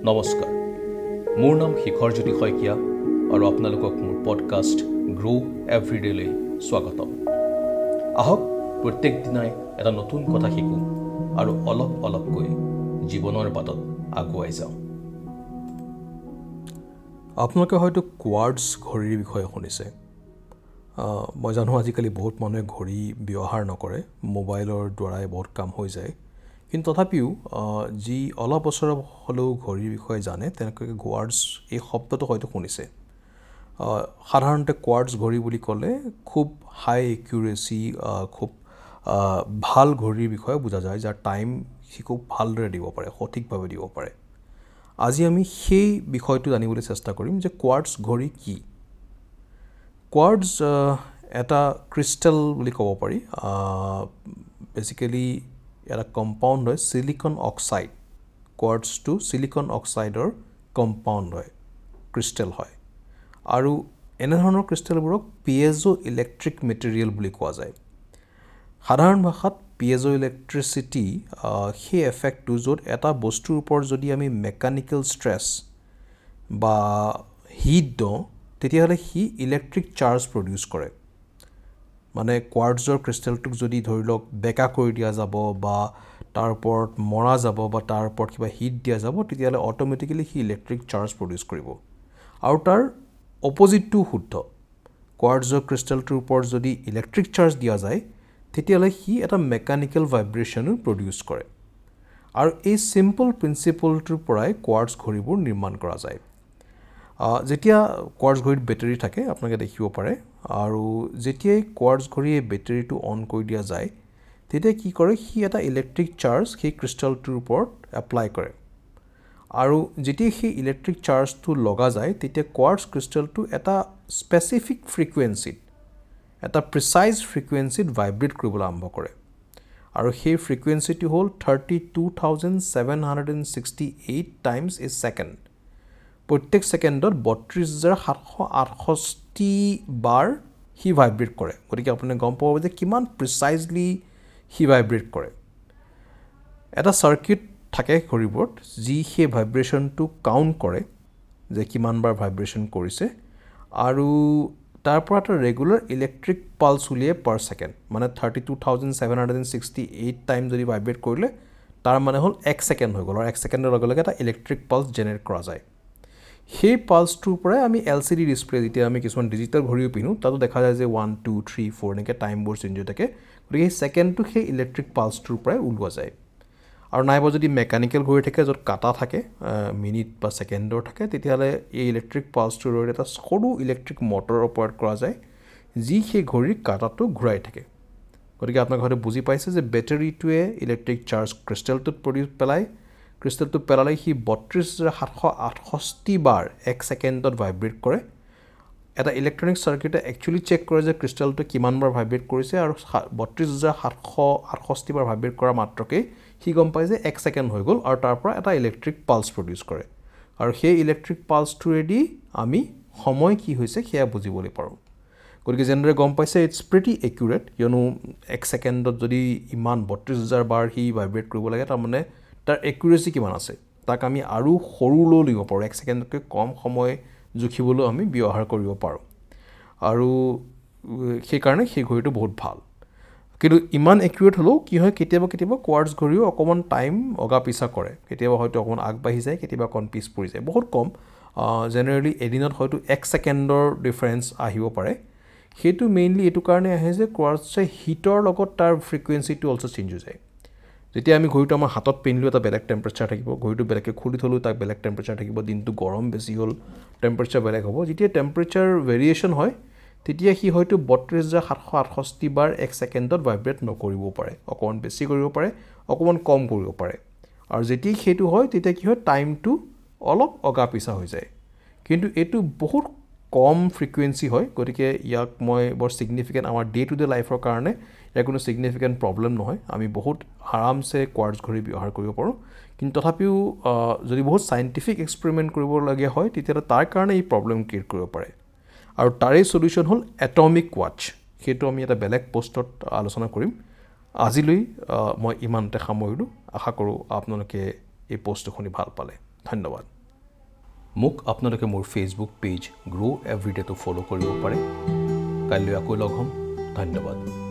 নমস্কাৰ, মোৰ নাম শিখৰজ্যোতি শইকীয়া আৰু আপোনালোকক মোৰ পডকাষ্ট গ্ৰ' এভৰিডেলৈ স্বাগতম। আহক প্ৰত্যেক দিনাই এটা নতুন কথা শিকোঁ আৰু অলপ অলপকৈ জীৱনৰ বাটত আগুৱাই যাওঁ। আপোনালোকে হয়তো কোৱাৰ্টছ ঘড়ীৰ বিষয়ে শুনিছে। মই জানো আজিকালি বহুত মানুহে ঘড়ী ব্যৱহাৰ নকৰে, মোবাইলৰ দ্বাৰাই বহুত কাম হৈ যায়। কিন্তু তথাপিও যি অলপ বছৰ হ'লেও ঘড়ীৰ বিষয়ে জানে তেওঁলোকে কোৱাৰ্টছ এই শব্দটো হয়তো শুনিছে। সাধাৰণতে কোৱাৰ্টছ ঘড়ী বুলি ক'লে খুব হাই একিউৰেচি, খুব ভাল ঘড়ীৰ বিষয়ে বুজা যায়, যাৰ টাইম সি খুব ভালদৰে দিব পাৰে, সঠিকভাৱে দিব পাৰে। আজি আমি সেই বিষয়টো জানিবলৈ চেষ্টা কৰিম যে কোৱাৰ্টছ ঘড়ী কি। কোৱাৰ্টছ এটা ক্ৰিষ্টেল বুলি ক'ব পাৰি। বেচিকেলি এটা কম্পাউণ্ড হয়, চিলিকন অক্সাইড। কোৱাৰ্টছটো চিলিকন অক্সাইডৰ কম্পাউণ্ড হয়, ক্ৰিষ্টেল হয়। আৰু এনেধৰণৰ ক্ৰিষ্টেলবোৰক পিয়েজো ইলেক্ট্ৰিক মেটেৰিয়েল বুলি কোৱা যায়। সাধাৰণ ভাষাত পিয়েজো ইলেক্ট্ৰিচিটি সেই এফেক্টটো য'ত এটা বস্তুৰ ওপৰত যদি আমি মেকানিকেল ষ্ট্ৰেছ বা হিট দিওঁ, তেতিয়াহ'লে সি ইলেক্ট্ৰিক চাৰ্জ প্ৰডিউচ কৰে। মানে কোৱাৰ্টছৰ ক্ৰিষ্টেলটোক যদি ধৰি লওক বেকা কৰি দিয়া যাব বা তাৰ ওপৰত মৰা যাব বা তাৰ ওপৰত কিবা হিট দিয়া যাব, তেতিয়াহ'লে অট'মেটিকেলি সি ইলেক্ট্ৰিক চাৰ্জ প্ৰডিউচ কৰিব। আৰু তাৰ অপজিটটোও শুদ্ধ। কোৱাৰ্টছৰ ক্ৰিষ্টেলটোৰ ওপৰত যদি ইলেক্ট্ৰিক চাৰ্জ দিয়া যায়, তেতিয়াহ'লে সি এটা মেকানিকেল ভাইব্ৰেশ্যনো প্ৰডিউচ কৰে। আৰু এই চিম্পল প্ৰিন্সিপলটোৰ পৰাই কোৱাৰ্টছ ঘড়ীবোৰ নিৰ্মাণ কৰা যায়। যেতিয়া কোৱাৰ্টছ ঘড়ীত বেটেৰী থাকে আপোনালোকে দেখিব পাৰে, আৰু যেতিয়াই কোৱাৰ্টছ ঘড়ীয়ে বেটেৰীটো অন কৰি দিয়া যায়, তেতিয়া কি কৰে, সি এটা ইলেক্ট্ৰিক চাৰ্জ সেই ক্ৰিষ্টেলটোৰ ওপৰত এপ্লাই কৰে। আৰু যেতিয়া সেই ইলেক্ট্ৰিক চাৰ্জটো লগা যায়, তেতিয়া কোৱাৰ্টছ ক্ৰিষ্টেলটো এটা স্পেচিফিক ফ্ৰিকুৱেঞ্চিত, এটা প্ৰিচাইজ ফ্ৰিকুৱেঞ্চিত ভাইব্ৰেট কৰিবলৈ আৰম্ভ কৰে। আৰু সেই ফ্ৰিকুৱেঞ্চিটো হ'ল 32,768 টাইমছ এ ছেকেণ্ড। প্ৰত্যেক ছেকেণ্ডত 32,768 বাৰ সি ভাইব্ৰেট কৰে। গতিকে আপুনি গম পাব যে কিমান প্ৰিচাইজলি সি ভাইব্ৰেট কৰে। এটা চাৰ্কিট থাকে ঘড়ীবোৰত যি সেই ভাইব্ৰেশ্যনটো কাউণ্ট কৰে যে কিমান বাৰ ভাইব্ৰেশ্যন কৰিছে, আৰু তাৰ পৰা এটা ৰেগুলাৰ ইলেক্ট্ৰিক পালছ উলিয়াই পাৰ ছেকেণ্ড। মানে 32,768 টাইম যদি ভাইব্ৰেট কৰিলে, তাৰ মানে হ'ল এক ছেকেণ্ড হৈ গ'ল, আৰু এক ছেকেণ্ডৰ লগে লগে এটা ইলেক্ট্ৰিক পালছ জেনেৰেট কৰা যায়। সেই পালছটোৰ পৰাই আমি এল চি ডি ডিছপ্লে, যেতিয়া আমি কিছুমান ডিজিটেল ঘড়ীও পিন্ধোঁ, তাতো দেখা যায় যে 1 2 3 4 এনেকৈ টাইমবোৰ চেঞ্জ হৈ থাকে। গতিকে সেই ছেকেণ্ডটো সেই ইলেক্ট্ৰিক পালছটোৰ পৰাই ওলোৱা যায়। আৰু নাইবা যদি মেকানিকেল ঘড়ী থাকে য'ত কাটা থাকে, মিনিট বা ছেকেণ্ডৰ থাকে, তেতিয়াহ'লে এই ইলেক্ট্ৰিক পালছটোৰ জৰিয়তে এটা সৰু ইলেক্ট্ৰিক মটৰ অপাৰেট কৰা যায়, যি সেই ঘড়ীৰ কাটাটো ঘূৰাই থাকে। গতিকে আপোনালোকে হয়তো বুজি পাইছে যে বেটেৰীটোৱে ইলেক্ট্ৰিক চাৰ্জ ক্ৰিষ্টেলটোত পেলায়। ক্ৰিষ্টেলটো পেলালে সি 32,768 বাৰ এক ছেকেণ্ডত ভাইব্ৰেট কৰে। এটা ইলেক্ট্ৰনিক চাৰ্কিটে একচুৱেলি চেক কৰে যে ক্ৰিষ্টেলটো কিমান বাৰ ভাইব্ৰেট কৰিছে, আৰু 32,768 বাৰ ভাইব্ৰেট কৰা মাত্ৰকেই সি গম পায় যে এক ছেকেণ্ড হৈ গ'ল, আৰু তাৰ পৰা এটা ইলেক্ট্ৰিক পালছ প্ৰডিউচ কৰে। আৰু সেই ইলেক্ট্ৰিক পালছটোৱেদি আমি সময় কি হৈছে সেয়া বুজিবলৈ পাৰোঁ। গতিকে যেনেদৰে গম পাইছে, it's pretty accurate. কিয়নো এক ছেকেণ্ডত যদি ইমান 32,000 বাৰ সি ভাইব্ৰেট কৰিব লাগে, তাৰমানে তাৰ একিউৰেচি কিমান আছে, তাক আমি আৰু সৰুলৈও লিখিব পাৰোঁ। এক ছেকেণ্ডতকৈ কম সময় জুখিবলৈও আমি ব্যৱহাৰ কৰিব পাৰোঁ। আৰু সেইকাৰণে সেই ঘড়ীটো বহুত ভাল। কিন্তু ইমান একিউৰেট হ'লেও কি হয়, কেতিয়াবা কেতিয়াবা কোৱাৰ্টছ ঘড়ীও অকণমান টাইম অগা পিছা কৰে। কেতিয়াবা হয়তো অকণমান আগবাঢ়ি যায়, কেতিয়াবা অকণ পিছ পৰি যায়, বহুত কম। জেনেৰেলি এদিনত হয়তো এক ছেকেণ্ডৰ ডিফাৰেঞ্চ আহিব পাৰে। সেইটো মেইনলি এইটো কাৰণে আহে যে কোৱাৰ্টছে হিটৰ লগত তাৰ ফ্ৰিকুৱেঞ্চিটো অলছ' চেঞ্জ হৈ যায়। যেতিয়া আমি ঘড়ীটো আমাৰ হাতত পিন্ধিলেও এটা বেলেগ টেম্পাৰেচাৰ থাকিব, ঘড়ীটো বেলেগকৈ খুলি থ'লেও তাক বেলেগ টেম্পাৰেচাৰ থাকিব, দিনটো গৰম বেছি হ'ল টেম্পাৰেচাৰ বেলেগ হ'ব। যেতিয়া টেম্পাৰেচাৰ ভেৰিয়েশ্যন হয়, তেতিয়া সি হয়তো 32,768 বাৰ এক ছেকেণ্ডত ভাইব্ৰেট নকৰিবও পাৰে, অকণমান বেছি কৰিব পাৰে, অকণমান কম কৰিব পাৰে। আৰু যেতিয়া সেইটো হয়, তেতিয়া কি হয়, টাইমটো অলপ অগা পিছা হৈ যায়। কিন্তু এইটো বহুত কম ফ্ৰিকুৱেঞ্চি হয়, গতিকে ইয়াক মই বৰ ছিগনিফিকেণ্ট আমাৰ ডে টু ডে লাইফৰ কাৰণে ইয়াৰ কোনো ছিগনিফিকেণ্ট প্ৰব্লেম নহয়। আমি বহুত আৰামছে কোৱাৰ্টছ ঘড়ী ব্যৱহাৰ কৰিব পাৰোঁ। কিন্তু তথাপিও যদি বহুত চাইণ্টিফিক এক্সপেৰিমেণ্ট কৰিবলগীয়া হয়, তেতিয়াহ'লে তাৰ কাৰণে এই প্ৰব্লেম ক্ৰিয়েট কৰিব পাৰে। আৰু তাৰেই চলিউশ্যন হ'ল এটমিক ৱাটচ। সেইটো আমি এটা বেলেগ পষ্টত আলোচনা কৰিম। আজিলৈ মই ইমানতে সামৰিলোঁ। আশা কৰোঁ আপোনালোকে এই পষ্টটো শুনি ভাল পালে। ধন্যবাদ। মোক আপোনালোকে মোৰ ফেচবুক পেজ গ্ৰ' এভৰিডেটো ফ'ল' কৰিব পাৰে। কাইলৈ আকৌ লগ হ'ম। ধন্যবাদ।